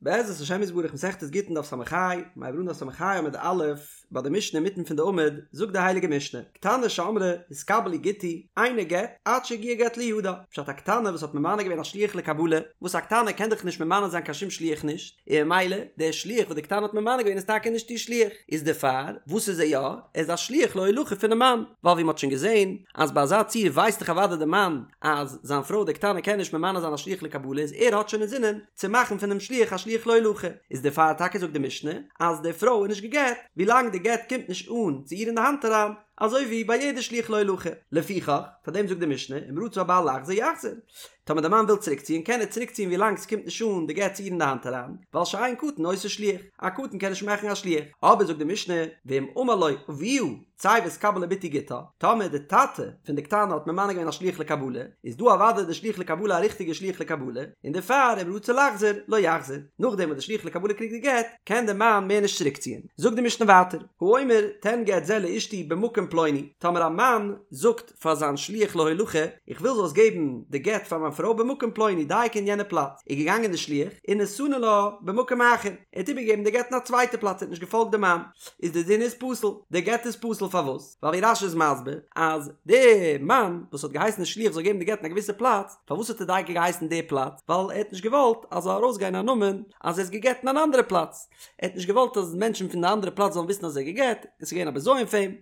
בעזרת השם יתברך מסכת גיטין דף ס"ה, מיר הייבן אן דף ס"ה עמוד א', ביי די משנה אינמיטן פון די עמוד, זאגט די הייליגע משנה, קטנה שאמרה התקבל לי גיטי, אינו גט, עד שיגיע גט לידה, פשט א קטנה וואס האט ממנה געווען א שליח לקבלה, וואס א קטנה קען דאך נישט ממנה זיין קיין שום שליח נישט, און ממילא דער שליח וואס די קטנה האט ממנה געווען איז טאקע נישט איר שליח, איז דערפאר וואס איז ער יא? ער איז א שליח להולכה פונעם מאן, ווייל ווי מ'האט שוין געזען אז ביי אזא ציור ווייסט דאך אוודאי דער מאן אז זיין פרוי די קטנה קען נישט ממנה זיין א שליח לקבלה איז ער האט שוין אינזינען צו מאכן פונעם שליח א שליח להולכה, איז דערפאר טאקע זאגט די משנה אז די פרוי איז נישט גע'גט ווילאנג די גט קומט נישט אן צו איר אין די האנט אריין, אזוי ווי ביי יעדע שליח להולכה. לפיכך, פאר דעם זאגט די משנה, אם רצה הבעל לחזור יחזור. טאמער די מאן וויל צוריקציען קען ער צוריקציען ווילאנג ס'קומט נישט אן די גט צו איר אין די האנט אריין, ווייל שאין קטן עושה שליח, א קטן קען נישט מאכן א שליח. אבער זאגט די משנה, ואם אמר לו אביה צא והתקבל לבתי גיטה, טאמער די טאטע פון די קטנה האט ממנה געווען א שליח לקבלה, איז דא אוודאי די שליח לקבלה א ריכטיגע שליח לקבלה, און דערפאר אם רצה לחזור לא יחזור, נאכדעם וואס די שליח לקבלה קריגט די גט, קען די מאן מער נישט צוריקציען. זאגט די משנה ווייטער, האומר תן גט זה לאשתי במקום פלוני, טאמער א מאן זאגט פאר זיין שליח להולכה, איך וויל זאלסט געבן די גט פאר מיין פרוי במקום פלוני דייקא אין יענע פלאץ, איז געגאנגען די שליח ונתנו לה במקום אחר, ער האט איבערגעגעבן די גט אין א צווייטע פלאץ, ער האט נישט געפאלגט די מאן, איז די דין איז פסול, די גט איז פסול פארוואס? ווייל ווי רש"י איז מסביר אז די מאן וואס האט געהייסן די שליח זאל געבן די גט אין א געוויסע פלאץ, פארוואס האט ער דייקא געהייסן די פלאץ? ווייל ער האט נישט געוואלט אז זאל ארויסגיין א נאמען אז ער איז גע'גט אין אן אנדערע פלאץ, ער האט נישט געוואלט אז מענטשן פון די אנדערע פלאץ זאלן וויסן אז ער איז גע'גט, און ס'איז געווען א בזיון פאר אים,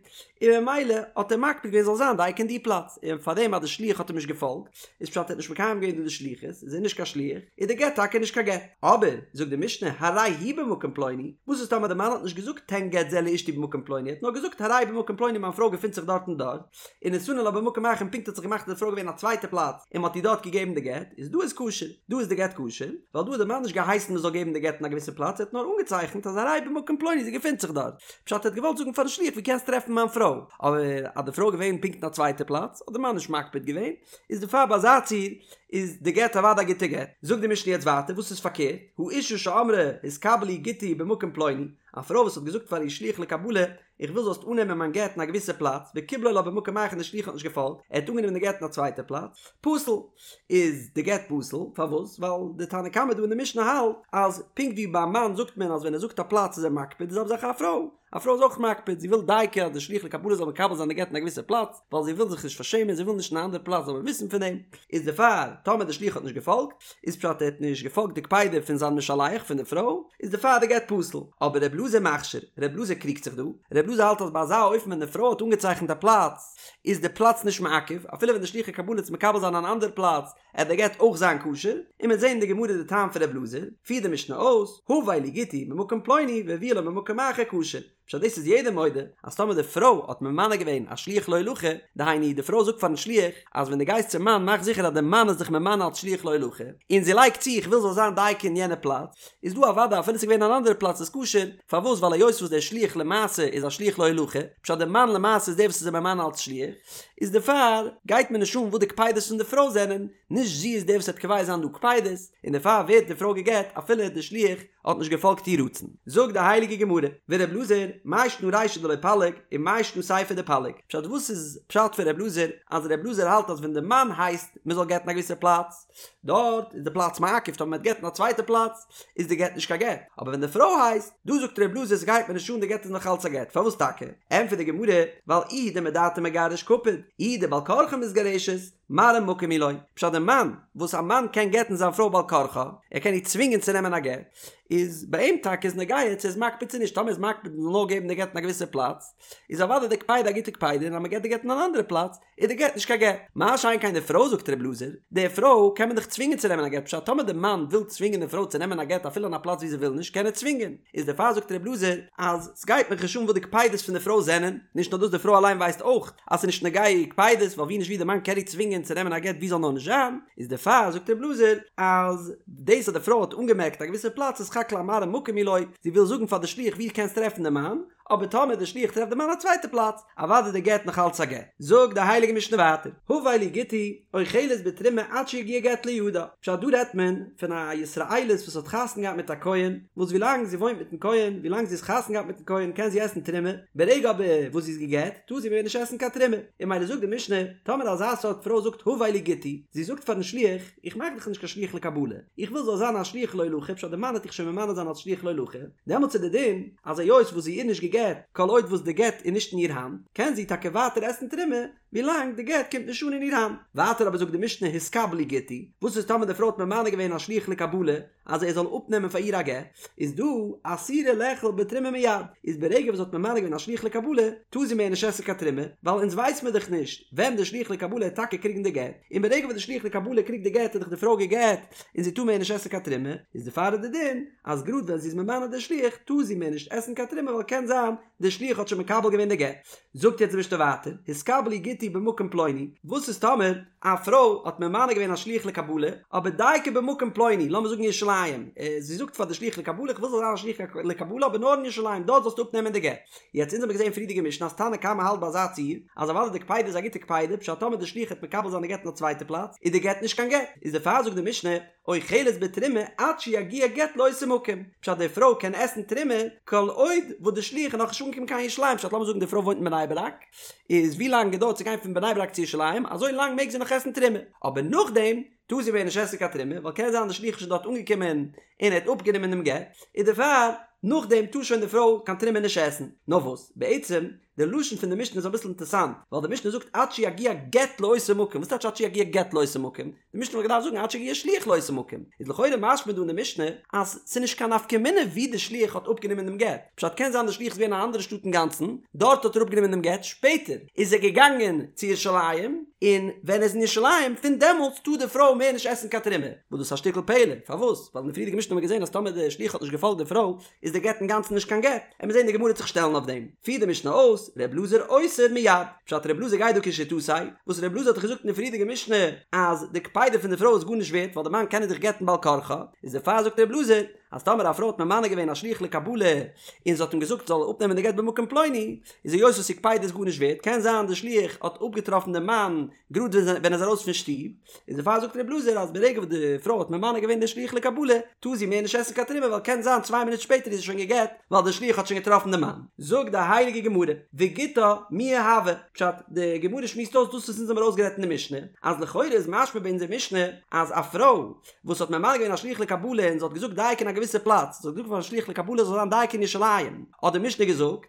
און ממילא האט ער מקפיד געווען זאל זיין דייקא אין די פלאץ, און פארדעם אז די שליח האט אים נישט געפאלגט, איז פשט ער האט נישט מקיים געווען דא די שליחות, איז ער נישט קיין שליח, איז די גט טאקע נישט קיין גט. אבער, זאגט די משנה, הרי היא במקום פלוני, וואס איז טאמער די מאן האט נישט געזאגט תן גט זה לאשתי במקום פלוני, ער האט נאר געזאגט הרי במקום פלוני מיין פרוי געפינט זיך דארט און דארט, ונתנו לה במקום אחר און פונקט האט זיך געמאכט אז די פרוי געווען אין א צווייטע פלאץ און מ'האט איר דארט געגעבן די גט, איז דא איז כשר, דא איז די גט כשר, ווייל דא האט די מאן נישט געהייסן מ'זאל געבן די גט אין א געוויסע פלאץ, ער האט נאר אנגעצייכנט אז הרי במקום פלוני זי געפינט זיך דארט, פשט ער האט געוואלט זאגן פארן שליח ווי קענסט טרעפן מיין פרוי, אבער אז די פרוי געווען פונקט אין א צווייטע פלאץ האט די מאן נישט מקפיד געווען, איז דערפאר ביי אזא ציור איז די גט אוודאי א גוטע גט. זאגט די משנה יעצט ווייטער וואס איז פארקערט, האשה שאמרה התקבל לי גיטי במקום פלוני, א פרוי וואס האט געזאגט פאר איר שליח לקבלה איך וויל זאלסט אננעמען מיין גט אין א געוויסע פלאץ, וקיבלו לה במקום אחר און די שליח האט נישט געפאלגט, ער האט אנגענומען די גט אין א צווייטע פלאץ, פסול. איז די גט פסול, פארוואס? ווייל די תנא קמא דא אין די משנה האלט אז פונקט ווי ביי א מאן זאגט מען אז ווען ער זאגט א פלאץ איז ער מקפיד, די זעלבע זאך א פרוי, א פרוי איז אויך מקפיד, זי וויל דייקא אז די שליח לקבלה זאל מקבל זיין די גט אין א געוויסע פלאץ, ווייל זי וויל זיך נישט פארשעמען, זי וויל נישט אין א אנדערע פלאץ זאל מען וויסן פון דעם, איז דערפאר טאמער די שליח האט נישט געפאלגט, איז פשט ער האט נישט געפאלגט די קפידה פון זיין משלח פון די פרוי, איז דערפאר די גט פסול. אבער ר' אלעזר מכשיר, ר' אלעזר קריגט זיך דא, ר' אלעזר האלט אז ביי אזא אופן ווען די פרוי האט אנגעצייכנט א פלאץ, איז די פלאץ נישט מעכב, אפילו ווען די שליח הקבלה וועט מקבל זיין אן אנדער פלאץ, עט די גט אויך זיין כשר, און מ'עט זעהן אין די גמרא די טעם פון ר' אלעזר, פירט די משנה אויס, הבא לי גיטי ממקום פלוני והביאו לו ממקום אחר כשר. פשט דאס איז יעדער מודה אז טאמער די פרוי האט ממנה געווען א שליח להולכה, דהיינו די פרוי זאגט פארן שליח אז ווען דו גייסט צום מאן מאך זיכער אז די מאן איז דיך ממנה אלס שליח להולכה, און זי לייגט צו איך וויל זאל זיין דייקא אין יענע פלאץ, איז דא אוודאי אפילו ס'איז געווען אן אנדערע פלאץ איז כשר, פארוואס ווייל היות וואס דער שליח למעשה איז א שליח להולכה, פשט די מאן למעשה איז דער וואס איז אים ממנה אלס שליח, איז דערפאר גייט מיר נישט אן וואס די קפידות פון די פרוי זענען, נישט זי איז דער וואס וועט קובע זיין דא קפידות, און דערפאר ווערט די פרוי גע'גט אפילו די שליח האט נישט געפאלגט איר רצון. זאגט די הייליגע גמרא, ור' אלעזר, מאי שנא רישא דלא פליג, ומאי שנא סיפא דפליג. פשט וואס איז פשט פון ר' אלעזר, אז ר' אלעזר האלט אז ווען די מאן הייסט מען זאל גט'ן א געוויסע פלאץ, דארט איז די פלאץ מעכב, טאמער מען וועט גט'ן א צווייטע פלאץ, איז די גט נישט קיין גט. אבער ווען די פרוי הייסט, דא זאגט ר' אלעזר ס'גייט מיר נישט אן די גט איז נאך אלץ א גט. פארוואס טאקע? ענטפערט די גמרא, ווייל איהו דמדעתיה מגרש קפיד, איהי דבעל כרחה מתגרשת, מראה מקום הוא לו, פשט די מאן, וואס א מאן קען גט'ן זיין פרוי בעל כרחה, ער קען איר צווינגען צו נעמען א גט, איז ביי אים טאקע איז נוגע צו ער איז מקפיד צו נישט, טאמער איז מקפיד מ'זאל נאר געבן די גט אין א געוויסע פלאץ, איז אוודאי די קפידה א גוטע קפידה און אז מ'געט די גט אין אן אנדערע פלאץ, איז די גט נישט קיין גט. מה שאין כן די פרוי זאגט ר' אלעזר, די פרוי קען מען דאך צווינגען צו נעמען א גט, פשט טאמער די מאן וויל צווינגען די פרוי צו נעמען א גט אפילו אין א פלאץ ווי זי וויל נישט קען ער צווינגען, איז דערפאר זאגט ר' אלעזר אז סגייט מיך נישט אן וואס די קפידות פון די פרוי זענען, נישט נאר דאס די פרוי אליין ווייסט אויך אז ס'איז נישט נוגע איר קפידות ווייל ווי נישט ווי די מאן קען איר צווינגען צו נעמען א גט ווי זאל נאר נישט זיין, איז דערפאר זאגט ר' אלעזר אז דאס אז די פרוי האט אנגעמערקט א געוויסע פלאץ איז סך הכל א מראה מקום הוא לו, זי וויל זאגן פאר די שליח ווי קענסט טרעפן די מאן, אבער טאמער די שליח טרעפט די מאן א צווייטע פלאץ, אוודאי די גט נאך אלץ א גט. זאגט די הייליגע משנה ווייטער, הבא לי גיטי, אוכלת בתרומה עד שיגיע גט לידה, פשט דא רעדט מען פון א ישראלית וואס האט חתונה געהאט מיט א כהן, וואס ווילאנג זי וואוינט מיטן כהן, ווילאנג זי איז חתונה געהאט מיטן כהן קען זי עסן תרומה, ברגע אבער וואס זי איז גע'גט טאר זי מער נישט עסן קיין תרומה, און ממילא זאגט די משנה, טאמער אזא סארט פרוי זאגט הבא לי גיטי, זי זאגט פארן שליח, איך מאך דיך נישט קיין שליח לקבלה, איך וויל זאל זיין א שליח להולכה, פשט די מאן עט דיך שוין ממנה זיין אלס שליח להולכה, דעמאלטס איז די דין אז היות וואס זי איז נישט גע'גט, כל עוד וואס די גט איז נישט אין איר האנט, קען זי טאקע ווייטער עסן תרומה, ווילאנג די גט קומט נישט אן אין איר האנט. ווייטער אבער זאגט די משנה התקבל לי גיטי, וואס איז טאמער די פרוי האט ממנה געווען א שליח לקבלה אז ער זאל אפנעמען פאר איר א גט, איז דא אסורה לאכול בתרומה מיד, איז ברגע וואס זי האט ממנה געווען א שליח לקבלה, טאר זי מער נישט עסן קיין תרומה, ווייל אונז ווייס מיר דאך נישט ווען די שליח לקבלה העט טאקע קריגן די גט, און ברגע וואס די שליח לקבלה קריגט די גט איז דאך די פרוי גע'גט און זי טאר מער נישט עסן קיין תרומה, איז דערפאר איז די דין אז גראד ווען זי איז ממנה די שליח טאר זי מער נישט עסן קיין תרומה ווייל קען זיין די שליח האט שוין מקבל געווען די גט. זאגט יעצט די משנה ווייטער, התקבל לי גיטי במקום פלוני, וואס איז טאמער א פרוי האט ממנה געווען א שליח לקבלה, אבער דייקא במקום פלוני, לאמיר זאגן ירושלים, זי זאגט פאר די שליח לקבלה איך וויל זאל זיין א שליח לקבלה אבער נאר אין ירושלים, דארט זאלסטו אפנעמען די גט. יעצט אונז האבן געזען אין פריערדיגע משנה אז תנא קמא האלט ביי אזא ציור, אז אוודאי די קפידה איז א גוטע קפידה, פשט טאמער די שליח העט מקבל זיין די גט אין א צווייטע פלאץ, איז די גט נישט קיין גט, איז דערפאר זאגט די משנה, אוכלת בתרומה עד שיגיע גט לאותו מקום, פשט די פרוי קען עסן תרומה כל עוד וואס די שליח איז נאכנישט אנגעקומען קיין ירושלים, פשט לאמיר זאגן די פרוי וואוינט אין בני ברק, איז ווי לאנג געדויערט צו גיין פון בני ברק צו ירושלים, אזוי לאנג מעג זי נאך עסן תרומה, אבער נאכדעם טאר זי מער נישט עסן קיין תרומה, ווייל קען זיין די שליח איז שוין דארט אנגעקומען און ער האט אפגענומען דעם גט, איז דערפאר נאכדעם טאר שוין די פרוי קיין תרומה נישט עסן, נאר וואס בעצם די לשון פון די משנה איז אביסל אינטערסאנט, ווייל די משנה זאגט עד שיגיע גט לאותו מקום, וואס טייטש עד שיגיע גט לאותו מקום? די משנה וואלט געדארפט זאגן עד שיגיע שליח לאותו מקום, איז לכאורה משמע דא אין די משנה אז ס'איז נישט קיין נפקא מינה ווי די שליח האט אפגענומען דעם גט, פשט קען זיין די שליח איז געווען אין א אנדערע שטאט אינגאנצן, דארט האט ער אפגענומען דעם גט, שפעטער איז ער געגאנגען צו ירושלים, און ווען ער איז אין ירושלים פון דעמאלטס טאר די פרוי מער נישט עסן קיין תרומה, וואס דאס איז א שטיקל פלא, פארוואס? ווייל אין די פריערדיגע משנה האט מען געזען אז טאמער די שליח האט נישט געפאלגט די פרוי איז די גט אינגאנצן נישט קיין גט, עמיר זען די גמרא וועט זיך שטעלן אויף דעם, פירט די משנה אויס, ר' אלעזר אוסר מיד, פשט ר' אלעזר גייט דא כשיטתו, וואס ר' אלעזר האט דאך געזאגט אין די פריערדיגע משנה אז די קפידה פון די פרוי איז גארנישט ווערט ווייל די מאן קען איר דאך גט'ן בעל כרחה, איז דערפאר זאגט ר' אלעזר אז טאמער א פרוי האט ממנה געווען א שליח לקבלה און זי האט אים געזאגט זאל אפנעמען די גט במקום פלוני, איז היות וואס איר קפידה איז גארנישט ווערט קען זיין די שליח האט אפגעטראפן די מאן גראד ווען ער איז ארויס פון שטוב, איז דערפאר זאגט ר' אלעזר אז ברגע וואס די פרוי האט ממנה געווען די שליח לקבלה טאר זי מער נישט עסן קיין תרומה ווייל קען זיין צוויי מינוט שפעטער איז זי שוין גע'גט ווייל די שליח האט שוין געטראפן די מאן. זאגט די הייליגע גמרא, וגיטה מיהא הוי, פשט, די גמרא שמועסט אויס דאס וואס אונז האבן ארויסגערעדט אין די משנה, אז לכאורה איז משמע ביי אונזער משנה אז א פרוי וואס האט ממנה געווען א שליח לקבלה און זי האט געזאגט דייקא אין א געוויסע פלאץ, זי האט געזאגט פארן שליח לקבלה זאל זיין דייקא אין ירושלים, האט די משנה געזאגט,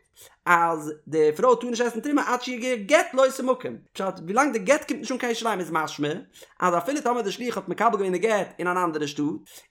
אז די פרוי טאר נישט עסן תרומה עד שיגיע גט לאותו מקום, פשט ווילאנג די גט קומט נישט אן קיין ירושלים איז משמע אז אפילו טאמער די שליח האט מקבל געווען די גט אין אן אנדערע שטאט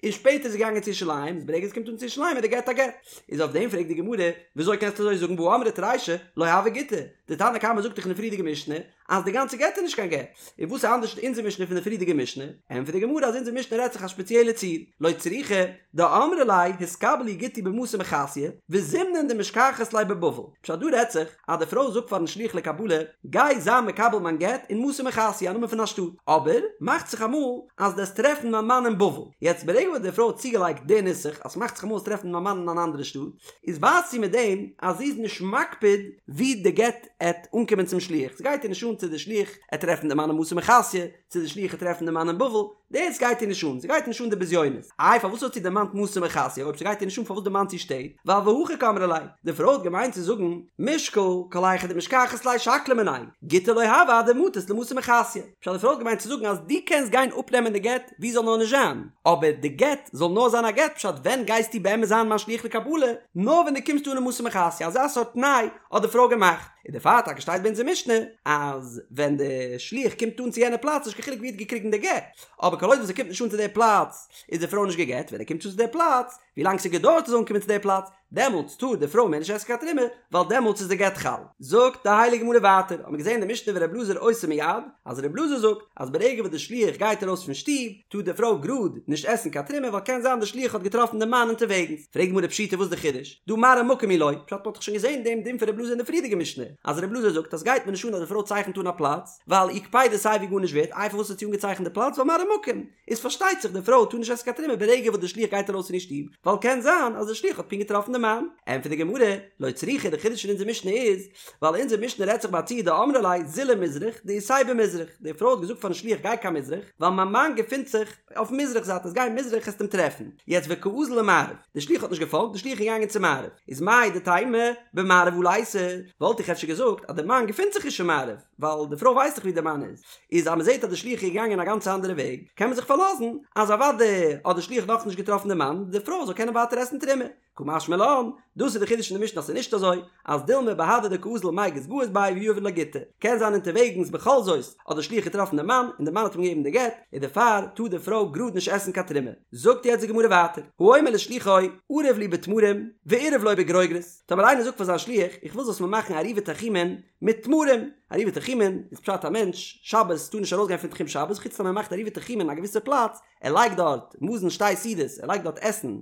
און שפעטער איז ער געגאנגען צו ירושלים איז ברגע עס קומט אן צו ירושלים איז די גט א גט, איז אויף דעם פרעגט די גמרא וויאזוי קענסטו אזוי זאגן והא אמרת רישא לא הוי גיטא, די תנא קמא זאגט דאך אין די פריערדיגע משנה אז די גאנצע גט איז נישט קיין גט, און וואס איז אנדערש אונזער משנה פון די פריערדיגע משנה? ענטפערט די גמרא אז אונזער משנה רעדט זיך א שפעציעלע ציור, לא צריכא דאמרה ליה התקבל לי גיטי במתא מחסיא וזימנין דמשכחת ליה בבבל, פשט דא רעדט זיך אז די פרוי זאגט פארן שליח לקבלה גיי זיי מקבל מיין גט אין מתא מחסיא א נאמען פון א שטאט, אבער מאכט זיך אמאל אז דו וועסט טרעפן מיין מאן אין בבל, יעצט ברגע וואס די פרוי האט צוגעלייגט די נוסח אז ס'מאכט זיך אמאל וועסט טרעפן מיין מאן אין אן אנדערע שטאט, איז ווייזט זי מיט דעם אז זי איז נישט מקפיד ווי די גט עט אנקומען צום שליח, ס'גייט איר נישט אן צו די שליח עט טרעפן די מאן אין מתא מחסיא, צו די שליח עט טרעפן די מאן אין בבל, דאס גייט איר נישט אן, ס'גייט איר נישט אן די בזיונות. איי פארוואס האט זי דערמאנט מתא מחסיא, אויב ס'גייט איר נישט אן פארוואס דערמאנט זי שטעט, ווייל והכי קאמרה ליה, די פרוי האט געמיינט צו זאגן, מישקל, כל היכא דמשכחת ליה שקלי מיניה, גיטא לא הוי עד דמטית למתא מחסיא. פשט די פרוי האט געמיינט צו זאגן אז דו קענסט גיין אפנעמען די גט ווי ס'זאל נאר נישט זיין, אבער די גט זאל נאר זיין א גט, פשט ווען גייסטו באמת זיין מיין שליח לקבלה, נאר ווען דו קומסט אן אין מתא מחסיא, אזא סארט תנאי האט די פרוי געמאכט, און דערפאר טאקע שטייט ביי אונזער משנה אז ווען די שליח קומט אן צו יענע פלאץ נישט קיין חילוק ווי ער האט געקריגן די גט, אבער כל עוד וואס ער קומט נישט אן צו די פלאץ איז די פרוי נישט גע'גט, ווען ער קומט אן צו די פלאץ, ווי לאנג ס'געדויערט ער זאל אנקומען צו די פלאץ, דעמאלטס טאר די פרוי מער נישט עסן קיין תרומה, ווייל דעמאלטס איז די גט חל. זאגט די הייליגע גמרא ווייטער, האט מען געזען אין די משנה ור' אלעזר אוסר מיד, אז ר' אלעזר זאגט אז ברגע וואס די שליח גייט ארויס פון שטוב, טאר די פרוי גראד נישט עסן קיין תרומה ווייל קען זיין די שליח האט געטראפן די מאן אונטערוועגנס. פרעגט די גמרא פשיטא וואס די חידוש? דהא מראה מקום הוא לו, פשט מ'האט דאך שוין געזען דעם דין פון ר' אלעזר אין די פריערדיגע משנה. אז ר' אלעזר זאגט אז סגייט מיר נישט אן אז די פרוי צייכנט אן א פלאץ, ווייל איר קפידה איז סייווי גארנישט ווערט, איי פארוואס האט זי אנגעצייכנט די פלאץ ווייל מראה מקום, איז פארשטייט זיך די פרוי טאר נישט עסן קיין תרומה ברגע וואס די שליח גייט ארויס פון איר שטוב, ווייל קען זיין אז די שליח האט פונקט געטראפן די מאן. ענטפערט די גמרא, לא צריכא, די חידוש פון אונזער משנה איז, ווייל אונזער משנה רעדט זיך ביי א ציור דאמרה ליה זיל למזרח דאיתיה במזרח, די פרוי האט געזאגט פארן שליח גיי קיין מזרח, ווייל מיין מאן געפינט זיך אויפן מזרח זייט, אז גיי מזרח העסט אים טרעפן, יעצט וקאזיל למערב, די שליח האט נישט געפאלגט, די שליח איז געגאנגען צו מערב, איז מהו דתימא במערב הא ליתיה, וואלט איך אפשר געזאגט אז די מאן געפינט זיך נישט אין מערב, ווייל די פרוי ווייסט דאך ווי די מאן איז, איז אז מען זעט אז די שליח איז געגאנגען א גאנץ אנדערע וועג, קען מען זיך פארלאזן אז אוודאי האט די שליח נאכנישט געטראפן די מאן, די פרוי זאל קענען ווייטער עסן תרומה. קא משמע לן, דאס איז די חידוש אין די משנה אז ס'איז נישט אזוי, אז דילמא בהדי דקאזיל מיגז גאיז ביה ויהיב לה גיטא, קען זיין אונטערוועגנס בכל זאת האט די שליח געטראפן די מאן און די מאן האט אים געגעבן די גט, און דערפאר טאר די פרוי גראד נישט עסן קיין תרומה. זאגט יעצט די גמרא ווייטער, האומר לשליחו ערב לי בתמרים ועירב לו בגרוגרות, טאמער איינער זאגט פאר זיין שליח איך וויל זאלסט מיר מאכן עירובי תחומין מיט תמרים, עירובי תחומין איז פשט א מענטש שבת טאר נישט ארויסגיין פון תחום שבת חוץ טאמער ער מאכט עירובי תחומין אין א געוויסע פלאץ, ער לייגט דארט מזון שתי סעודות, ער לייגט דארט עסן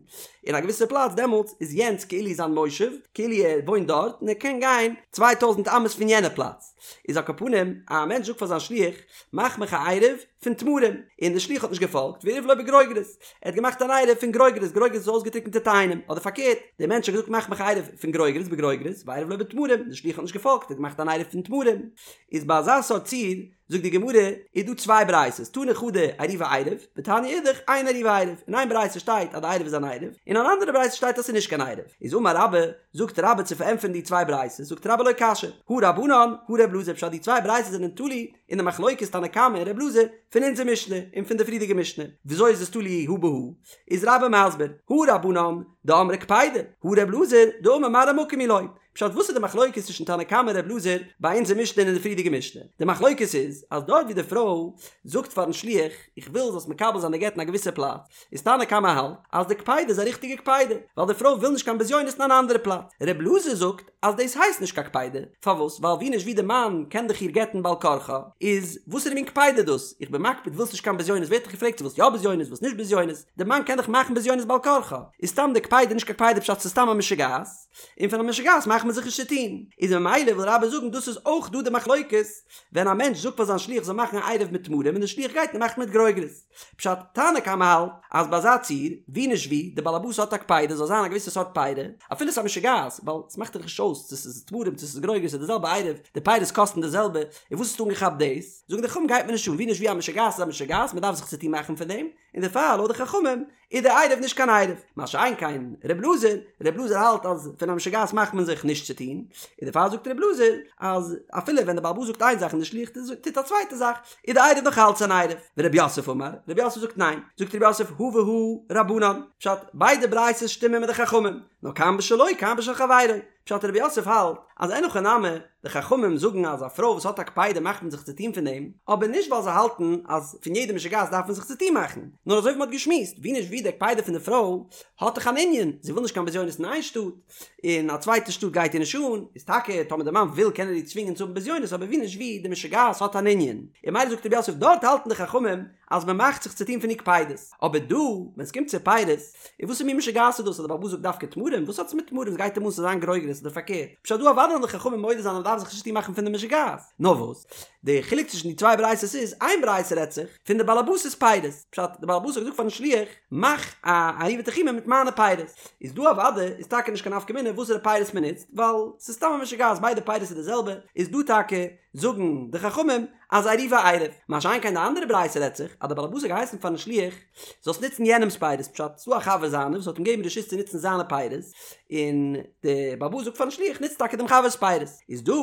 אין א געוויסע פלאץ, דעמאלטס איז יענץ כאילו זיין מושב, כאילו ער וואוינט דארט, און ער קען גיין 2000 אמות פון יענע פלאץ. איז על כל פנים, א מענטש זאגט פאר זיין שליח, מאך מיך א עירוב פון תמרים, און דער שליח האט נישט געפאלגט, ועירב לו בגרוגרות, ער האט געמאכט אן עירוב פון גרוגרות, גרוגרות איז אויסגעטריקענטע תאנים, אדער פארקערט, דער מענטש האט געזאגט מאך מיך א עירוב פון גרוגרות בגרוגרות, ועירב לו בתמרים, דער שליח האט נישט געפאלגט, ער האט געמאכט אן עירוב פון תמרים. איז ביי אזא סארט ציור, זאגט די גמרא, איז דא צוויי ברייתות, תני חדא עירובו עירוב, ותניא אידך אין עירובו עירוב, אין איין ברייתא שטייט אז די עירוב איז אן עירוב, אין אן אנדערע ברייתא שטייט אז ס'איז נישט קיין עירוב, איז אמר רבה, זאגט רבה צו פארענטפערן די צוויי ברייתות, זאגט רבה לא קשיא, הא רבנן, הא ר' אלעזר, פשט די צוויי ברייתות זענען תלוי אין די מחלוקת תנא קמא און ר' אלעזר פון אונזער משנה און פון די פריערדיגע משנה, וויאזוי איז עס תלוי הא בהא? איז רבה מסביר, הא רבנן, דאמרי קפידא, הא ר' אלעזר, דאמר מראה מקום הוא לו, פשט וואס איז די מחלוקת צווישן תנא קמא און ר' אלעזר ביי אונזער משנה און אין די פריערדיגע משנה? די מחלוקת איז אז דארט ווי די פרוי זאגט פארן שליח איך וויל זאלסט מקבל זיין די גט אין א געוויסע פלאץ איז תנא קמא האלט אז די קפידה איז א ריכטיגע קפידה ווייל די פרוי וויל נישט קיין בזיונות אין אן אנדערע פלאץ ר' אלעזר זאגט אז דאס הייסט נישט קיין קפידה פארוואס ווייל ווי נישט ווי די מאן קען דאך איר גט'ן בעל כרחה איז וואסערע מין קפידה דאס איך בין מקפיד ווילסט נישט קיין בזיונות ווער האט דיך געפרעגט צו ווילסט יא בזיונות ווילסט נישט בזיונות די מאן קען דאך מאכן בזיונות בעל כרחה איז סתם די קפידה נישט קיין קפידה פשט ס'איז סתם א משוגעת. און פון א משוגעת מאכט מען זיך נישט צו טון, איז ממילא וויל רבה זאגן דאס איז אויך דא די מחלוקת, ווען א מענטש זאגט פאר זיין שליח זאל מאכן א עירוב מיט תמרים און די שליח גייט און מאכט מיט גרוגרות. פשט, תנא קמא האלט אז ביי אזא ציור, ווי נישט ווי, די בעל הבית האט א קפידה זאל זיין א געוויסע סארט פירי, אפילו ס'איז א משוגעת, ווייל ס'מאכט דאך נישט אויס צו ס'איז תמרים צו ס'איז גרוגרות ס'איז די זעלבע עירוב, די פירות קאסטן די זעלבע, און וואס האסטו אנגעכאפט דאס? זאגן די חכמים גייט מיר נישט אן, ווי נישט ווי א משוגעת איז א משוגעת, מ'דארף זיך צו טון מאכן פון דעם, און דערפאר לויט די חכמים איז די עירוב נישט קיין עירוב, מה שאין כן ר' אלעזר, ר' אלעזר האלט אז פון א משוגעת מאכט מען זיך נישט צו טון, און דערפאר זאגט ר' אלעזר אז אפילו ווען די בעל הבית זאגט איין זאך און די שליח טוט א צווייטע זאך, איז די עירוב נאך אלץ אן עירוב. ורב יוסף אמר, רב יוסף זאגט ניין, זאגט רב יוסף הא והא רבנן, פשט, ביידע ברייתות שטימען מיט די חכמים, נאר כאן בשלו כאן בשל חברו, פשט רב יוסף האלט אז אין הכי נמי, די חכמים זאגן אז א פרוי וואס האט א קפידה מאכט מען זיך צוטון פון דעם, אבער נישט ווייל זיי האלטן אז פון יעדע משוגעת דארף מען זיך צוטון מאכן, נאר אזוי ווי מען האט געשמועסט, ווי נישט ווי די קפידה פון די פרוי האט דאך אן ענין, זי וויל נישט קיין בזיונות אין איין שטאט, און א צווייטע שטאט גייט איר נישט אן, איז טאקע טאמער די מאן וויל קען ער איר צווינגען צו האבן בזיונות אבער ווי נישט ווי די משוגעת האט אן ענין, און ממילא זאגט רב יוסף דארט האלטן די חכמים אז מען מאכט זיך צוטון פון איר קפידות, אבער דא ווען עס קומט צו פירות, און וואסער מין משוגעת איז דאס אז דער בעל הבית זאגט דווקא תמרים? וואס האט עס מיט תמרים? ס'גייט אים אן ס'זאל זיין גרוגרות אדער פארקערט? פשט דא אוודאי וועלן די חכמים מודה זיין אז מ'דארף זיך נישט צוטון מאכן פון די משוגעת. נאר וואס? די חילוק צווישן די צוויי ברייתות איז, איין ברייתא רעדט זיך פון די בעל הבית'ס פירות, פשט, די בעל הבית האט געזאגט פארן שליח, מאך א עירובי תחומין מיט מיינע פירות. איז דא אוודאי איז טאקע נישט קיין נפקא מינה וואסערע פירות מ'נוצט, ווייל ס'איז סתם א משוגעת ביידע פירות איז די זעלבע, איז דא טאקע זאגן די חכמים אז עירובו עירוב, מה שאין כן די אנדערע ברייתא רעדט זיך אז די בעל הבית האט געהייסן פארן שליח זאלסט נוצן יענעמס פירות, פשט, ס'דא א חבר זיינער וואס האט אים געגעבן רשות צו נוצן זיינע פירות, און די בעל הבית זאגט פארן שליח נוץ טאקע דעם חבר'ס פירות, איז דא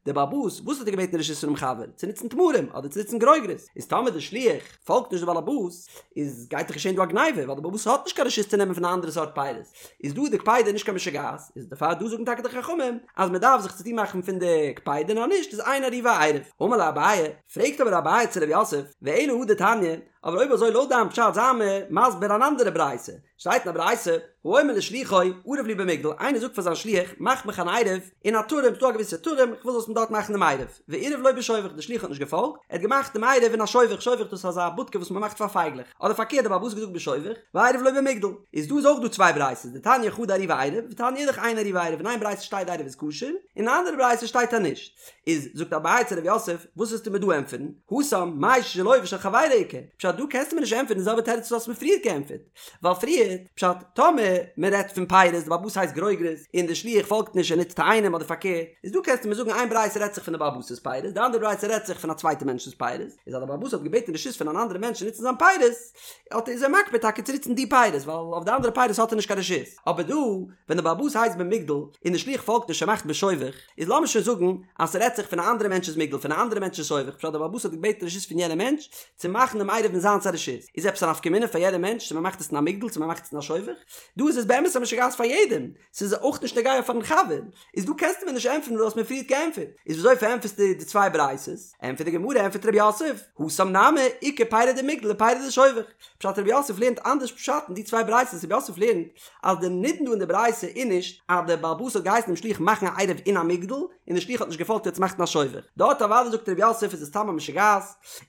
די בעל הבית וואס האט ער געבעטן רשות פונעם חבר צו נוצן תמרים אדער צו נוצן גרוגרות, איז טאמער די שליח פאלגט נישט די בעל הבית איז גייט דאך געשען דא א גניבה ווייל די בעל הבית האט נישט קיין רשות צו נעמען פון א אנדערע סארט פירות, איז דא די קפידה נישט קיין משוגעת, איז דערפאר דא זאגן טאקע די חכמים אז מען דארף זיך צוטון מאכן פון די קפידה נאר נישט איז אין עירובו עירוב. אמר ליה אביי, פרעגט אבער אביי צו רב יוסף, ואלא הא דתניא, אבער אויב אזוי לויט דיין פשט זיי מיר מסביר אן אנדערע ברייתא, שטייט אין א ברייתא, האומר לשלוחו, ערב לי במגדל, איינער זאגט פאר זיין שליח, מאך מיך אן עירוב אין א טורעם, ס'דא א געוויסע טורעם, איך וויל זאלסט מיר דארט מאכן דעם עירוב, ועירב לו בשובך, דער שליח האט נישט געפאלגט, ער האט געמאכט דעם עירוב אין א שובך, שובך דאס איז אזא בודקע וואס מען מאכט פאר פייגלעך, אדער פארקערט דער בעל הבית האט געזאגט בשובך, ועירב לו במגדל, איז דא איז אויך דא צוויי ברייתות, דתניא חדא עירובו עירוב, ותניא אידך אין עירובו עירוב, אין איין ברייתא שטייט די עירוב איז כשר, און אין א אנדערע ברייתא שטייט אז נישט. איז זאגט אביי צו רב יוסף, וואס וועסטו מיר דא ענטפערן? התם, מאי שלו ושל חברו איכא? פשט דא קענסטו מיר נישט ענטפערן די זעלבע תירוץ וואס האסט מיר פריערט געענטפערט, ווייל פריערט, פשט, טאמער מען רעדט פון פירות, די בעל הבית הייסט גרוגרות, און די שליח פאלגט נישט און נוצט תאנים אדער פארקערט, איז דא קענסטו מיר זאגן איין ברייתא רעדט זיך פון די בעל הבית'ס פירות, די אנדערע ברייתא רעדט זיך פון א צווייטע מענטשנ'ס פירות, איז אז די בעל הבית האט געבעטן רשות פון אן אנדערע מענטש צו נוצן זיין פירות, האט איז ער מקפיד טאקע צו נוצן די פירות, ווייל אויף די אנדערע פירות האט ער נישט קיין רשות. אבער דא, ווען די בעל הבית הייסט במגדל, און די שליח פאלגט נישט און מאכט בשובך, איז לאמיר שוין זאגן אז ס'רעדט זיך פון א אנדערע מענטש'ס מגדל פון א אנדערע מענטש'ס שובך פשט דער בעל הבית האט געבעטן רשות פון יענעם מענטש צו מאכן דעם עירוב אין זיינס א רשות איז עפעס א נפקא מינה פאר יעדער מענטש צו מ'מאכט עס אין א מגדל צו מ'מאכט עס אין א שובך? דא איז עס באמת א משוגעת פאר יעדעם ס'איז אויך נישט נוגע פארן חבר איז דא קענסטו מיר נישט ענטפערן וואס דו האסט מיר פריערט געענטפערט איז וויאזוי פארענטפערסטו די צוויי ברייתות? ענטפערט די גמרא ענטפערט רב יוסף התם נמי איכא פירי דמגדל ופירי דשובך פשט רב יוסף לערנט אנדערש פשט אין די צוויי ברייתות רב יוסף לערנט אז די נידון דא אין די ברייתא איז נישט אז דער בעל הבית האט געהייסן דעם שליח מאכן א עירוב אין א מגדל און דער שליח האט נישט געפאלגט ער האט עס געמאכט אין א שובך, דארט אוודאי זאגט רב יוסף איז עס סתם א משוגעת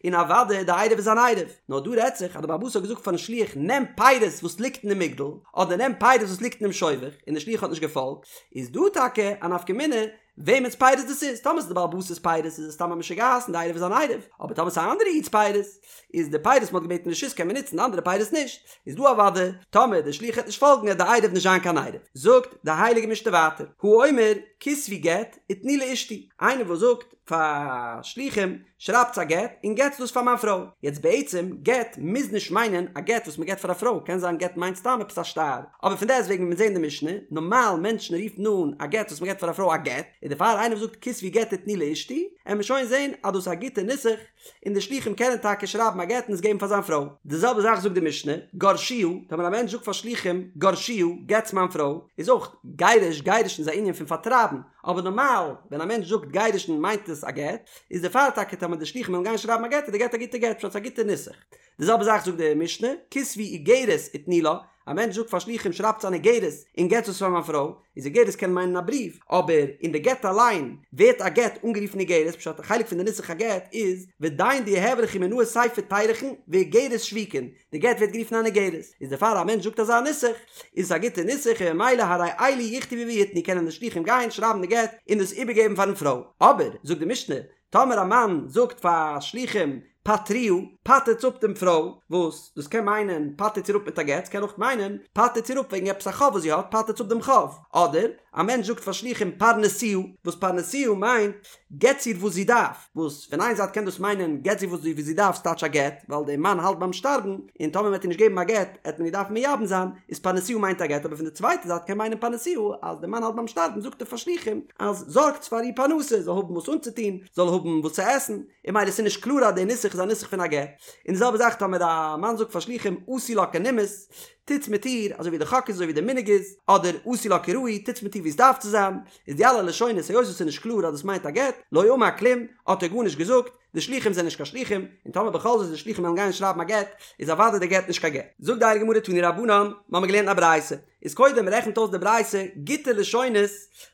און אוודאי די עירוב איז אן עירוב, נאר דא רעדט זיך אז דער בעל הבית האט געזאגט פארן שליח נעם פירות וואס ליגט אין די מגדל אדער נעם פירות וואס ליגט אינעם שובך און דער שליח האט נישט געפאלגט, איז דא טאקע א נפקא מינה וועמענס פירות דאס איז, טאמער ס'איז די בעל הבית'ס פירות איז עס סתם א משוגעת און די עירוב איז אן עירוב, אבער טאמער ס'איז א אנדערע איד'ס פירות, איז די פירות מ'האט געבעטן רשות קען מען נוצן די אנדערע פירות נישט, איז דא אוודאי טאמער די שליח העט נישט פאלגן העט די עירוב נישט זיין קיין עירוב. זאגט די הייליגע משנה ווייטער, האומר כתבו גט ותנו לאשתי, איינער וואס זאגט פאר שלוחים שרייבטס א גט און געטס דאס פאר מיין פרוי, יעצט בעצם גט מוז נישט מיינען א גט וואס מ'געט פאר א פרוי, קען זיין גט מיינט סתם עפעס א שטר, אבער פון דעסט וועגן ווי מיר זעהן אין די משנה, נארמאל מענטשן רופן אן א גט וואס מ'געט פאר א פרוי א גט, און דערפאר איינער וואס זאגט כתבו גט ותנו לאשתי, עמיר שוין זעהן אז דאס איז א גוטע נוסח, און די שלוחים קענען טאקע שרייבן א גט און עס געבן פאר זיין פרוי. די זעלבע זאך זאגט די משנה, גרשוה, טאמער א מענטש זאגט פאר שלוחים, גרשוה, גט'ס מיין פרוי, איז אויך גירוש, גירושין איז א ענין פון פארטרייבן, אבער נארמאל ווען א מענטש זאגט גירושין מיינט עס א גט, איז דערפאר טאקע טאמער די שלוחים וועלן גיין שרייבן א גט איז די גט א גוטע גט, פשט ס'איז א גוטע נוסח. די זעלבע זאך זאגט די משנה, כתבו איגרת ותנו לה, א מענטש זאגט פאר שלוחים שרייבטס אן איגרת און געטס עס פאר מיין פרוי, איז איגרת קען מיינען א בריוו, אבער אין די גט אליין ווערט א גט אנגערופן איגרת, פשט א חלק פון די נוסח הגט איז ודין דיהוי ליכו מינאי ספר תירוכין ואיגרת שבוקין, די גט ווערט גערופן אן איגרת, איז דערפאר א מענטש זאגט אזא נוסח איז עס א גוטע נוסח און ממילא הרי אלו יכתבו ויתנו קענען די שלוחים גיין שרייבן די גט און דאס איבערגעבן פארן פרוי, אבער זאגט די משנה טאמער א מאן זאגט פאר שלוחים פטרוה, פטר'טס אפ דעם פרוי, וואס דאס קען מיינען פטר'טס איר אפ מיט א גט, ס'קען אויך מיינען פטר'טס איר אפ וועגן עפעס א חוב וואס זי האט, פטר'טס אפ דעם חוב. אדער א מענטש זאגט פאר שלוחים פרנסוה, וואס פרנסוה מיינט געטס איר וואס זי דארף, וואס פון איין זייט קען דאס מיינען געטס איר וואס זי דארף ס'טייטש א גט, ווייל דער מאן האלט ביים שטארבן, און טאמער מ'וועט איר נישט געבן א גט, עט מען איר דארפן מייבם זיין, איז פרנסוה מיינט א גט, אבער פון די צווייטע זייט קען מיינען פרנסוה אז דער מאן האלט ביים שטארבן זאגט ער פאר שלוחים אז זארגטס פאר איר פרנסה, זאל האבן וואס אנצוטון, זאל האבן וואס צו עסן, און ממילא ס'איז נישט קלאר אז דער נוסח איז א נוסח פון א גט. און די זעלבע זאך טאמער א מאן זאגט פאר שלוחים עשו לה כנימוס, טוטס מיט איר אזוי ווי די חק איז אזוי ווי די מנהג איז, אדער עשו לה כראוי, טוטס מיט איר ווי עס דארף צו זיין, איז די אלע לשונות היות עס איז נישט קלאר אז דאס מיינט א גט, לא אמר כלום, האט ער גארנישט געזאגט, די שלוחים זענען נישט קיין שלוחים, און טאמער בכל זאת די שלוחים וועלן גיין שרייבן א גט, איז אוודאי די גט נישט קיין גט. זאגט די הייליגע גמרא תנו רבנן, מ'האמיר געלערנט א ברייתא, איז קודם רעכנט אויס די ברייתא גוטע לשונות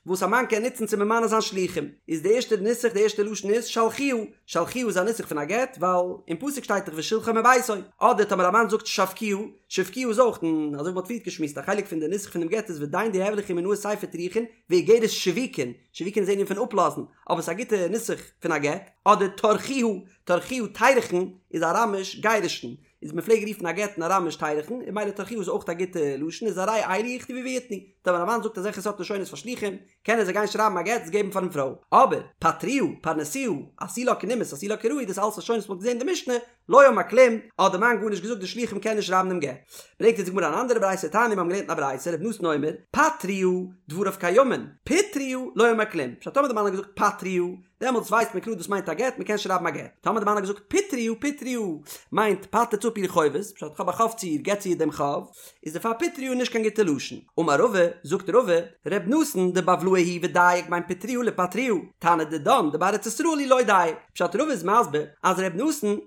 וואס א מאן קען נוצן צו ממנה זיין שלוחים, איז די ערשטע נוסח די ערשטע לשון איז שלחוה, שלחוה איז א נוסח פון א גט, ווייל אין פסוק שטייט דאך ושלחה מביתו, אדער טאמער א מאן זאגט שבקוה, שבקוה איז אויך, און אזוי ווי מ'האט פריערט געשמועסט א חלק פון די נוסח פונעם גט איז ודין דיהוי ליכו מינאי ספר תירוכין ואיגרת שבוקין, שבוקין איז ענין פון אפלאזן, אבער ס'איז א גוטע נוסח פון א גט, אדער טרחוה, טרחוה תירוכין איז אראמיש גירושין, איז מ'פלעג רופן א גט אין אראמיש תירוכין, און ממילא טרחוה איז אויך א גוטע לשון, איז הרי אלו יכתבו ויתנו, טאמער א מאן זאגט אזעלכע סארט לשונות פאר שלוחים, קענען זיי גיין שרייבן א גט עס געבן פארן פרוי, אבער פטרוה, פרנסוה, עשו לה כנימוס, עשו לה כראוי, דאס אלעס לשונות וואס מ'האט געזען אין די משנה, לא אמר כלום, האט די מאן גארנישט געזאגט די שלוחים קענען נישט שרייבן דעם גט. ברענגט אונז די גמרא אן אנדערע ברייתא תניא מיר האבן געלערנט אין א ברייתא ר' נתן אומר פטרוה דבריו קיימין פיטרוה לא אמר כלום פשט טאמער די מאן האט געזאגט פטרוה דעמאלטס ווייסט מען קלאר דאס מיינט א גט מען קען שרייבן א גט טאמער די מאן האט געזאגט פיטרוה פיטרוה מיינט פטר'טס אפ איר חובות פשט כ'האב א חוב צו איר געבטס איר דעם חוב איז דערפאר פיטרוה נישט קיין גוטע לשון. אמר רבא, זאגט רבא, ר' נתן דבבלאי הוא ודייק בין פיטרוה לפטרוה, תנא דידן דבר ארץ ישראל הוא לא דייק. פשט רבא איז מסביר אז ר' נתן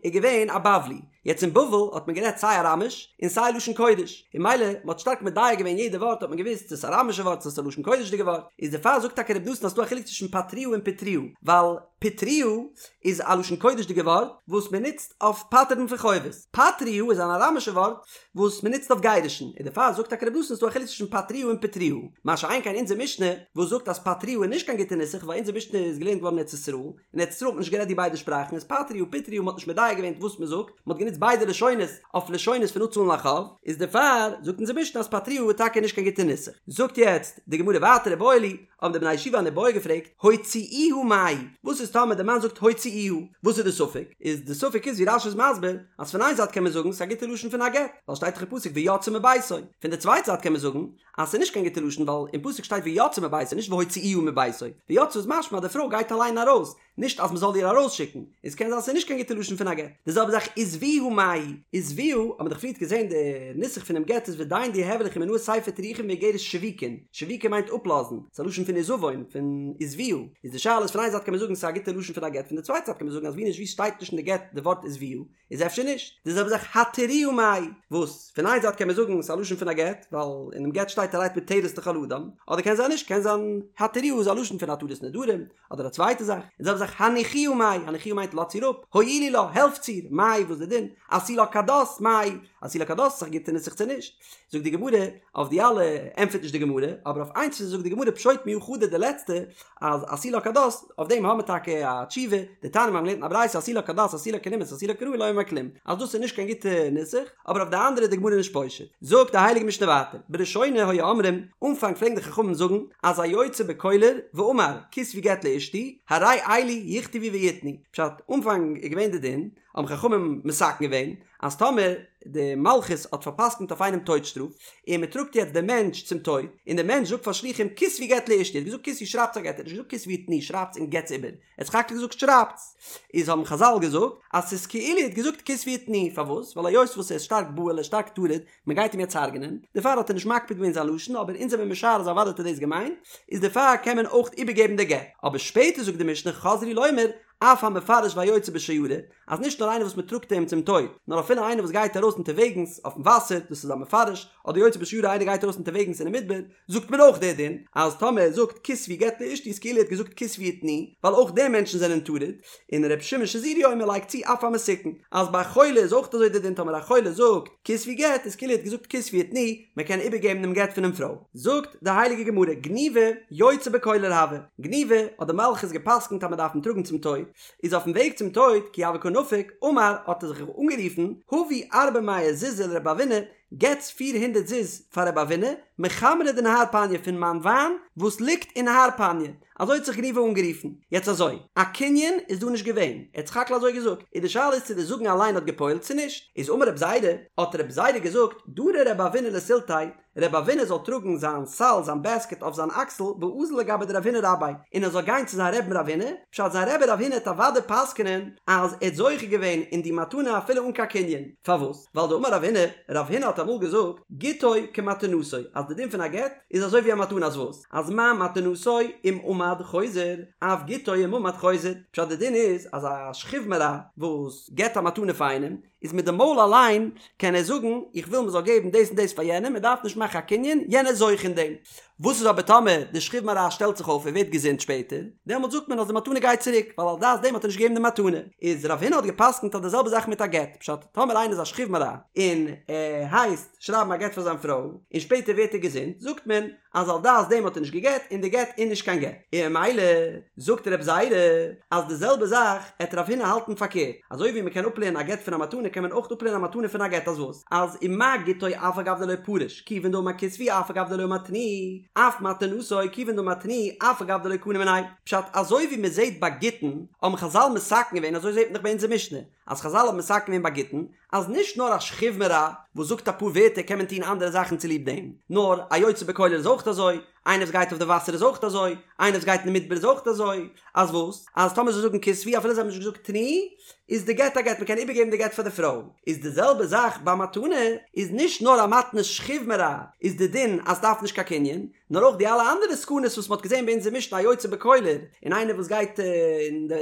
איז געווען א בבלי. יעצט אין בבל האט מען גערעדט סיי אראמיש און סיי לשון קודש, און ממילא מען האט שטארק מדייק געווען יעדע ווארט האט מען געוואוסט צו עס איז אראמישע ווארט צו עס איז א לשון קודש'דיגע ווארט, איז דערפאר זאגט טאקע רבי נתן אז ס'דא א חילוק צווישן פטרוה און פיטרוה, ווייל פיטרוה איז א לשון קודש'דיגע ווארט וואס מען נוצט אויף פטר'ן פון חובות, פטרוה איז אן אראמישע ווארט וואס מען נוצט אויף גירושין, און דערפאר זאגט טאקע רבי נתן ס'דא א חילוק צווישן פטרוה און פיטרוה, מה שאין כן אונזער משנה וואס זאגט אז פטרוה איז נישט קיין גוטע נוסח ווייל אונזער משנה איז געלערנט געווארן אין ארץ ישראל, אין ארץ ישראל האט מען נישט גערעדט די ביידע שפראכן איז פטרוה פיטרוה מען האט נישט מדייק געווען וואס מען זאגט, מען האט גענוצט ביידע לשונות אויף לשונות פון אפצאלן א חוב, איז דערפאר זאגט אונזער משנה אז פטרוה איז טאקע נישט קיין גוטע נוסח. זאגט יעצט די גמרא ווייטער איבעיא להו, האבן די בני ישיבה אן איבעיא געפרעגט, הוציאוה מאי, וואס איז טאמער די מאן זאגט הוציאוה, וואס איז די ספק? איז די ספק איז ווי רש"י איז מסביר, אז פון איין זייט קען מען זאגן ס'איז א גוטע לשון פון א גט, ווייל שטייט דאך אין פסוק ויצאה מביתו, פון די צווייטע זייט קען מען זאגן אז ס'איז נישט קיין גוטע לשון ווייל אין פסוק שטייט ויצאה מביתו נישט והוציאוה מביתו, ויצאה איז משמע אז די פרוי גייט אליין ארויס, נישט אז מ'זאל איר ארויסשיקן, איז קען זיין ס'איז נישט קיין גוטע לשון פון א גט. די זעלבע זאך עזבוה מאי, עזבוה, האט מען דאך פריערט געזען די נוסח פונעם גט איז ודיין דיהוי ליכי מינאי ספר תירוכין ואיגרת שבוקין, שבוקין מיינט אפלאזן, ס'איז א לשון פון עזבון, פון עזבוה, איז די שאלה איז פון איין זייט קען מען זאגן ס'איז א גוטע לשון פון א גט פון די צווייטע זייט קען מען זאגן אז ווי נישט ווי שטייט נישט אין די גט די ווארט עזבוה, איז אפשר נישט די זעלבע זאך התירוה מאי, וואס פון איין זייט קען מען זאגן ס'איז א לשון פון א גט, ווייל אינעם גט שטייט הרי את מותרת לכל אדם, אדער קען זיין נישט, קען זיין התירוה איז א לשון פון התרת נדרים, אדער א צווייטע זאך, און די זעלבע זאך הניחוה מאי, הניחוה מיינט לאזטס איר אפ, הואילו לה, העלפטס איר, מאי וואס די דין, עשו לה כדת, מאי, עשו לה כדת איז א גוטע נוסח צו נישט, זאגט די גמרא, אויף די אלע ענטפערט נישט די גמרא, אבער אויף איינס זאגט די גמרא פשוט מיהא חדא די לעצטע, אז עשו לה כדת, אויף דעם האמיר טאקע א תשובה, דתניא מיר האבן געלערנט אין א ברייתא עשו לה כדת עשו לה כנימוס עשו לה כראוי לא אמר כלום, אז דאס איז נישט קיין גוטע נוסח, אבער אויף די אנדערע איז די גמרא נישט פושט. זאגט די הייליגע משנה ווייטער, בראשונה היו אומרים, אנפאנג פלעגן די חכמים זאגן, אז היוצא בקולר ואמר כתבו גט לאשתי, הרי אלו יכתבו ויתנו, פשט, אנפאנג איז געווען די דין, האבן חכמים מתקן געווען, אז טאמער די מלכות האט פארפסקנט אויף איינעם טויט שטראף, און מען טראגט יעצט דעם מענטש צום טויט, און דער מענטש זאגט פאר שליחים כתבו גט לאשתי, ער האט געזאגט כתבו שרייבטס א גט, ער האט נישט געזאגט כתבו ותנו שרייבטס און געטס איבער, ער האט סך הכל געזאגט שרייבטס, איז האבן חזל געזאגט אז ס'איז כאילו ער האט געזאגט כתבו ותנו, פארוואס? ווייל היות וואס ער איז שטארק בהול ער איז שטארק טרוד, מען גייט אים יעצט הרג'נען, דערפאר האט ער נישט מקפיד געווען זיין לשון, אבער אונז זעמיר משער אז אוודאי האט ער דאס געמיינט, איז דערפאר קען מען אויך איבערגעבן די גט, אבער שפעטער זאגט די משנה חזרו לומר אף המפרש והיוצא בשיירא, אז נישט נאר איינער וואס מען טראגט אים צום טויט, נאר אפילו איינער וואס גייט ארויס אונטערוועגנס אויפן וואסער, דאס איז א מפרש, אדער יוצא בשיירא איינער גייט ארויס אונטערוועגנס אינעם מדבר, זאגט מען אויך דער דין, אז טאמער ער זאגט כתבו גט לאשתי איז כאילו ער האט געזאגט כתבו ותנו, ווייל אויך די מענטשן זענען טרוד, און ר' שמעון שזורי אומר לייגט צו אף המסוכן, אז ביי א חולה איז אויך אזוי דער דין טאמער א חולה זאגט כתבו גט איז כאילו ער האט געזאגט כתבו ותנו, מען קען איבערגעבן דעם גט פונעם פרוי. זאגט די הייליגע גמרא, גניבא יוצא בקולר הוה, גניבא האט די מלכות גע'פסק'נט אז מען דארף אים טראגן צום טויט, איז אויפן וועג צום טויט, כי הוה קא נפיק, אמר, האט ער זיך אנגערופן, הבו ארבע מאה זוזי לרבי אבינא, געטס פיר הונדרעט זוז פאר רבי אבינא, מחמרא דנהר פניא פון מיין וויין וואס ליגט אין נהר פניא, אזוי האט זיך גניבא אנגערופן. יעצט אזוי, א קנין איז דא נישט געווען, ער האט סך הכל אזוי געזאגט, און די שאלה איז צו די זאגן אליין האט געפועלט צו נישט, איז אמר רב זירא, האט רב זירא געזאגט, דרי רבי אבינא לסילתיה, רבי אבינא זאל טראגן זיין סל, זיין בעסקעט אויף זיין אקסל, ואזיל לגבי דרב הונא רביה, און ער זאל גיין צו זיין רבי'ן רב הונא, פשט זיין רבי רב הונא העט אוודאי פסק'נען אז ער האט זוכה געווען אין די מתנה אפילו אן קיין קנין, פארוואס? ווייל דאמר רב הונא, רב הונא האט אמאל געזאגט, גיטו כמתנתו, אז די דין פון א גט איז אזוי ווי א מתנה אז וואס? אז מה מתנתו אם עמד חוזר, אף גיטו אם עמד חוזר, פשט די דין איז אז א שכיב מרע וואס געבט א מתנה פאר איינעם, איז מיט די מויל אליין קען ער זאגן איך וויל מ'זאל געבן דאס און דאס פאר יענעם, מען דארף נישט מאכן א קנין, יענער איז זוכה אין דעם. וואס איז אבער טאמער די שכיב מרע שטעלט זיך אויף און ווערט געזונט שפעטער, דעמאלט זאגט מען אז די מתנה גייט צוריק, ווייל על דעת דעם האט ער נישט געגעבן די מתנה. איז רב הונא האט גע'פסק'נט אז די זעלבע זאך מיט א גט, פשט, טאמער איינער איז א שכיב מרע און ער הייסט שרייבן א גט פאר זיין פרוי, און שפעטער ווערט ער געזונט, זאגט מען אז על דעת דעם האט ער נישט געגט און די גט איז נישט קיין גט. און ממילא זאגט רב זירא אז די זעלבע זאך עט רב הונא האלטן פארקערט, אזוי ווי מען קען אפלערנען א גט פון א מתנה קען מען אויך אפלערנען א מתנה פון א גט אז וואס? אז ומה גיטו אף על גב דלא פריש כיוון דאמר כתבו אף על גב דלא אמר תנו אף מתנתו כיוון דאמר תנו אף על גב דלא קנה מיניה פשט אזוי ווי מען זעט ביי גיטין האבן חזל מתקן געווען אזוי זעט מען דאך ביי אונזער משנה אז חזל האבן מתקן געווען ביי גיטין אז נישט נאר א שכיב מרע וואס זאגט אפאר ווערטער קען מען טון אנדערע זאכן צוליב דעם נאר א יוצא בקולר איז אויך אזוי איינער וואס גייט אויף די וואסער איז אויך אזוי, איינער וואס גייט אין די מדבר איז אויך אזוי, אז וואס? אז טאמער זיי זאגן כתבו אפילו זיי האבן נישט געזאגט תנו, איז די גט א גט, מ'קען איבערגעבן די גט פאר די פרוי. איז די זעלבע זאך ביי מתנה, איז נישט נאר א מתנת שכיב מרע איז די דין אז ס'דארף נישט קיין קנין, נאר אויך די אלע אנדערע סכנות וואס מ'האט געזען ביי אונזער משנה א יוצא בקולר, און איינער וואס גייט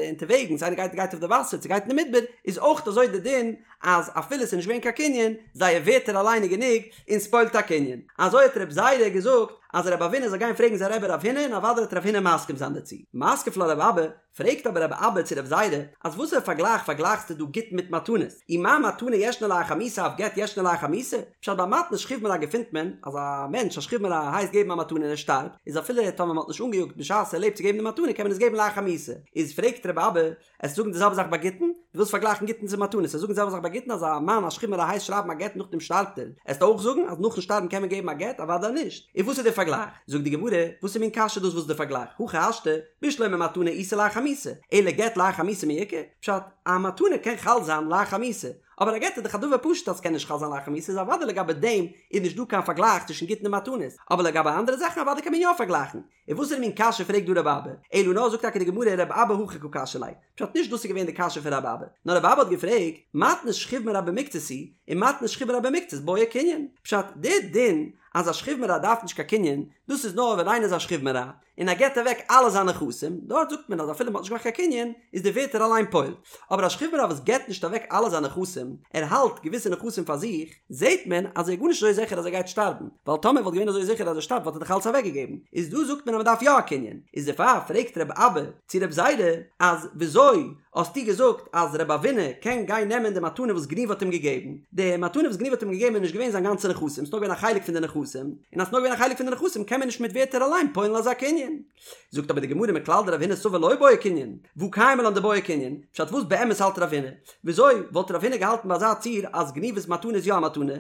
אונטערוועגנס, איינער גייט גייט אויף די וואסער, צו גייט אין די מדבר, איז. איז אויך אזוי די דין אז אפילו ס'איז נישט געווען קיין קנין, זייער ווערטער אליין איז גענוג און ס'פועל'ט א קנין. אזוי האט רב זירא געזאגט אז רב אבינא זאל גיין פרעגן זיין רבי רב הונא און אוודאי וועט רב הונא מסכים זיין דערצו. מתקיף לה רב אבא, פרעגט אבער רב אבא צו רב זירא, אז וואסערע פארגלייך פארגלייכסטו דא גיטין מיט מתנות? אי מה מתנה ישנה לאחר מיתה אף גט ישנו לאחר מיתה? פשט ביי מתנת שכיב מרע געפינט מען אז א מענטש א שכיב מרע הייסט געבן א מתנה און ער שטארבט, איז אפילו טאמער מען האט נישט אנגעיאגט בשעת ער לעבט צו געבן די מתנה קען מען עס געבן לאחר מיתה. איז פרעגט רב אבא, עסט זאגן די זעלבע זאך ביי גיטין? דו ווילסט פארגלייכן גיטין צו מתנות, עסט זאגן די זעלבע זאך ביי גיטין אז א מאן א שכיב מרע הייסט שרייבן א גט נאכדעם שטארבט ער, עסט אויך זאגן אז נאכן שטארבן קען מען געבן א גט? אוודאי נישט. און וואס איז דער פארגלייך? זאגט די גמרא, וואסער מין קשיא דאס וואס איז דער פארגלייך? הכי השתא, בשלמא מתנה איתא לאחר מיתה, אלא גט לאחר מיתה מי איכא? פשט, א מתנה קען חל זיין לאחר מיתה, אבער א גט איז דאך א דבר פשוט אז ס'קען נישט חל זיין לאחר מיתה איז אוודאי לגבי דעם איז נישט דא קיין פארגלייך צווישן גיטין און מתנות, אבער לגבי אנדערע זאכן אוודאי קען מען יא פארגלייכן. און וואסערע מין קשיא פרעגט דא רב אבא? אלא נאר זאגט טאקע די גמרא רב אבא הכי קא קשיא ליה, פשט נישט דאס איז געווען די קשיא פון רב אבא, נאר רב אבא האט געפרעגט, מתנת שכיב מרע במקצת היא, און מתנת שכיב מרע במקצת בעי קנין, פשט די דין אז א שכיב מרע דארף נישט קיין קנין, דאס איז נאר ווען איינער איז א שכיב מרע, און ער געבט אוועק אלע זיינע נכסים, דארט זאגט מען אז אפילו מען האט נישט געמאכט קיין קנין, איז די ווערטער אליין פועל. אבער א שכיב מרע וואס געבט נישט אוועק אלע זיינע נכסים, ער האלט געוויסע נכסים פאר זיך, זעט מען אז ער איז גארנישט אזוי זיכער אז ער גייט שטארבן, ווייל טאמער וואלט געווען אזוי זיכער אז ער שטארבט וואלט ער דאך אלץ אוועקגעגעבן, איז דא זאגט מען אז מען דארף יא א קנין, איז דערפאר פרעגט רב אבא צו רב זירא אז וויאזוי האסטו געזאגט אז רב אבינא קען גיין נעמען די מתנה וואס גניבא האט אים געגעבן, די מתנה וואס גניבא האט אים געגעבן איז נישט געווען זיין גאנצע נכסים, ס'איז נאר געווען א חלק פון די נכסים, און אז ס'איז נאר געווען א חלק פון די נכסים קען מען נישט מיט ווערטער אליין פועל'ן אזא קנין. זאגט אבער די גמרא מכלל דרב הונא סבר לא בעי קנין, והא קיימא לן דבעי קנין, פשט וואס באמת האלט רב הונא? וויאזוי וואלט רב הונא געהאלטן ביי אזא ציור אז גניבא'ס מתנה איז יא א מתנה?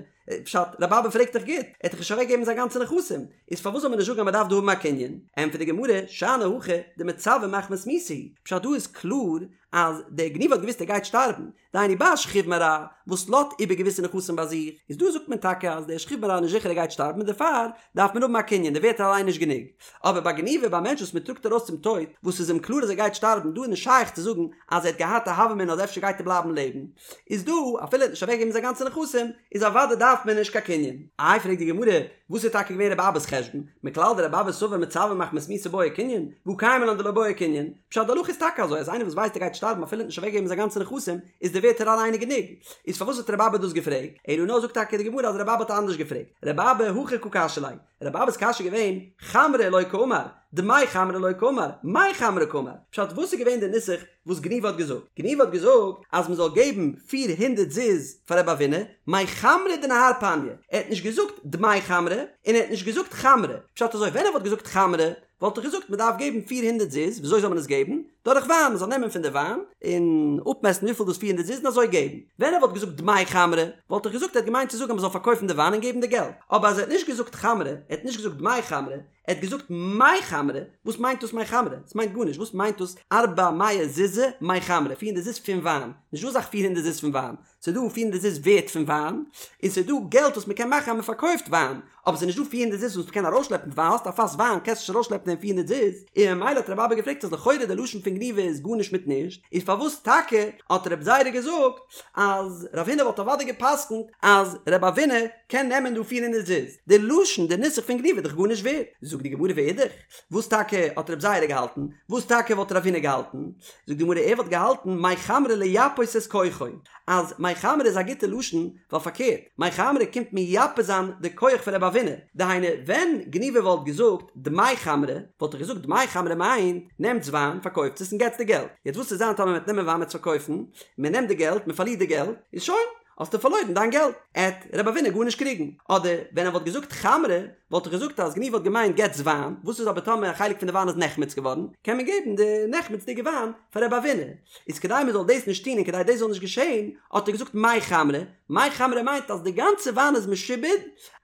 פשט, רב אבא פרעגט דאך גוט, ער האט דאך נישט אוועק געגעבן זיין גאנצע נכסים, איז פארוואס זאל מען נישט זאגן אז מען דארף דא האבן א קנין? ענטפערט די גמרא, שאני הכא דמצווה מחמת מיתה הוא, פשט דא איז קלאר אז דער גניבא האט געוואוסט ער גייט שטארבן, דהיינו ביי א שכיב מרע וואס לאזט איבער געוויסע נכסים ביי זיך, איז דא זאגט מען טאקע אז דער שכיב מרע איז נישט זיכער ער גייט שטארבן און דערפאר דארף מען האבן א קנין, די ווערטער אליין נישט גענוג. אבער ביי גניבא ביי א מענטש וואס מען טראגט ארויס צום טויט, וואס איז אים קלאר אז ער גייט שטארבן, דא איז נישט שייך צו זאגן אז ער האט געהאט א הוה אמינא אז אפשר גייט ער בלייבן לעבן, איז דא אפילו ער האט נישט אוועקגעגעבן זיין גאנצע נכסים, איז אוודאי דארף מען נישט קיין קנין. איי פרעגט די גמרא, וואס איז טאקע געווען רבי אבא'ס חשבון? מכלל דרבי אבא סבר מצווה מחמת מיתה בעי קנין, והא קיימא לן דלא בעי קנין, פשט די הלכה איז טאקע אזוי אז איינער וואס ווייסט ער גייט שטארבן אפילו ער האט נישט אוועקגעגעבן זיין גאנצע נכסים איז די ווערטער אליין גענוג, איז פארוואס האט רבי אבא דאס געפרעגט? אלא נאר זאגט טאקע די גמרא אז רבי אבא האט אנדערש געפרעגט, רבי אבא הכי קא קשיא ליה, רבי אבא'ס קשיא איז געווען, חמרא לא קאמר, דמי חמרא לא קאמר, מי חמרא קאמר, פשט וואס איז געווען די נוסח וואס גניבא האט געזאגט? גניבא האט געזאגט אז מען זאל געבן פיר הונדערט זוז פאר רבי אבינא, מי חמרא דנהר פניא, ער האט נישט געזאגט דמי חמרא, און ער האט נישט געזאגט חמרא, פשט אזוי ווען ער וואלט געזאגט חמרא וואלט איך געזאגט מען דארף געבן פיר הונדערט זוז, וויאזוי זאל מען עס געבן? דורך וויין, מען זאל נעמען פון די וויין און אפמעסטן וויפיל דאס פיר הונדערט זוז און אזוי געבן. ווען ער וואלט געזאגט דמי חמרא, וואלט איך געזאגט ער האט געמיינט צו זאגן אז מען זאל פארקויפן די וויין און געבן די געלט. אבער אז ער האט נישט געזאגט חמרא, ער האט נישט געזאגט דמי חמרא, ער האט געזאגט מי חמרא, וואס מיינט דאס מי חמרא? עס מיינט גארנישט, וואס מיינט דאס ארבע מאה זוזי מי חמרא, פיר הונדערט זוז פון וויין? נישטא אזא זאך פיר הונדערט זוז פון וויין. ס'איז דא פיר הונדערט זוז ווערט פון וויין, און ס'איז דא געלט וואס מ'קען מאכן אז מ'פארקויפט וויין, אבער ס'איז נישט דא פיר הונדערט זוז וואס מ'קען ארויסשלעפן ווייל האסט א פאס וויין קענסט נישט ארויסשלעפן דעם פיר הונדערט זוז, און ממילא האט רבי אבא געפרעגט אז לכאורה די לשון פון גניבא איז גארנישט מיט נישט, איז פארוואס טאקע האט רב זירא געזאגט אז רב הונא וואלט אוודאי גע'פסק'נט אז רב אבינא קען נעמען דא פיר הונדערט זוז, די לשון די נוסח פון גניבא איז דאך גארנישט ווערט, זאגט די גמרא ואידך, וואס טאקע האט רב זירא געהאלטן? וואס טאקע וואלט רב הונא געהאלטן? זאגט די גמרא ער וואלט געהאלטן מי חמרא לייפות את כוחו, אז מי חמרא איז א גוטע לשון, ווייל פארקערט, מי חמרא קומט מייפה זיין די כח פון רב אבינא, דהיינו ווען גניבא וואלט געזאגט דמי חמרא, וואלט ער געזאגט דמי חמרא מיינט, נעמטס וויין, פארקויפטס עס און געטס די געלט, יעצט וואס וועט זיין טאמער מ'וועט נעמען וויין מ'וועט עס פארקויפן, מ'נעמט די געלט, מ'פארלירט די געלט, איז שוין. האסטו פארלוירן דיין געלט, עט רב אבינא גארנישט קריגן. אדער ווען ער וואלט געזאגט חמרא, וואלט איך געזאגט אז גניבא האט געמיינט געטס וויין, וואס איז אבער טאמער א חלק פון די וויין איז נחמץ געווארן, קען מען געבן די נחמצ'דיגע וויין פאר רב אבינא. איז כדי מען זאל דאס נישט טון און כדי דאס זאל נישט געשען, האט ער געזאגט מי חמרא, מי חמרא מיינט אז די גאנצע וויין איז משועבד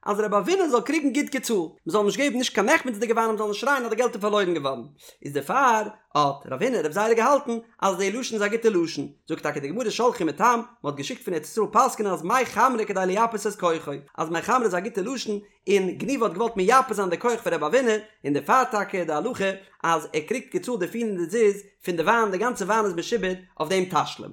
אז רב אבינא זאל קריגן גוט געצאלט, מען זאל נישט געבן נישט קיין נחמצ'דיגע וויין און מען זאל נישט שרייען אז די געלט איז פארלוירן געווארן. איז דערפאר האט רב הונא רב זירא געהאלטן אז די לשון איז א גוטע לשון, זאגט טאקע די גמרא שלחו מתם, מען האט געשיקט פון ארץ ישראל פסק'נען אז מי חמרא כדי לייפות את כוחו, אז מי חמרא איז א גוטע לשון, און גניבא האט געוואלט מייפה זיין די כח פון רב אבינא, און דערפאר טאקע איז די הלכה אז ער קריגט געצאלט די פיר הונדערט זוז פון די וויין, די גאנצע וויין איז משועבד אויף דעם תשלום.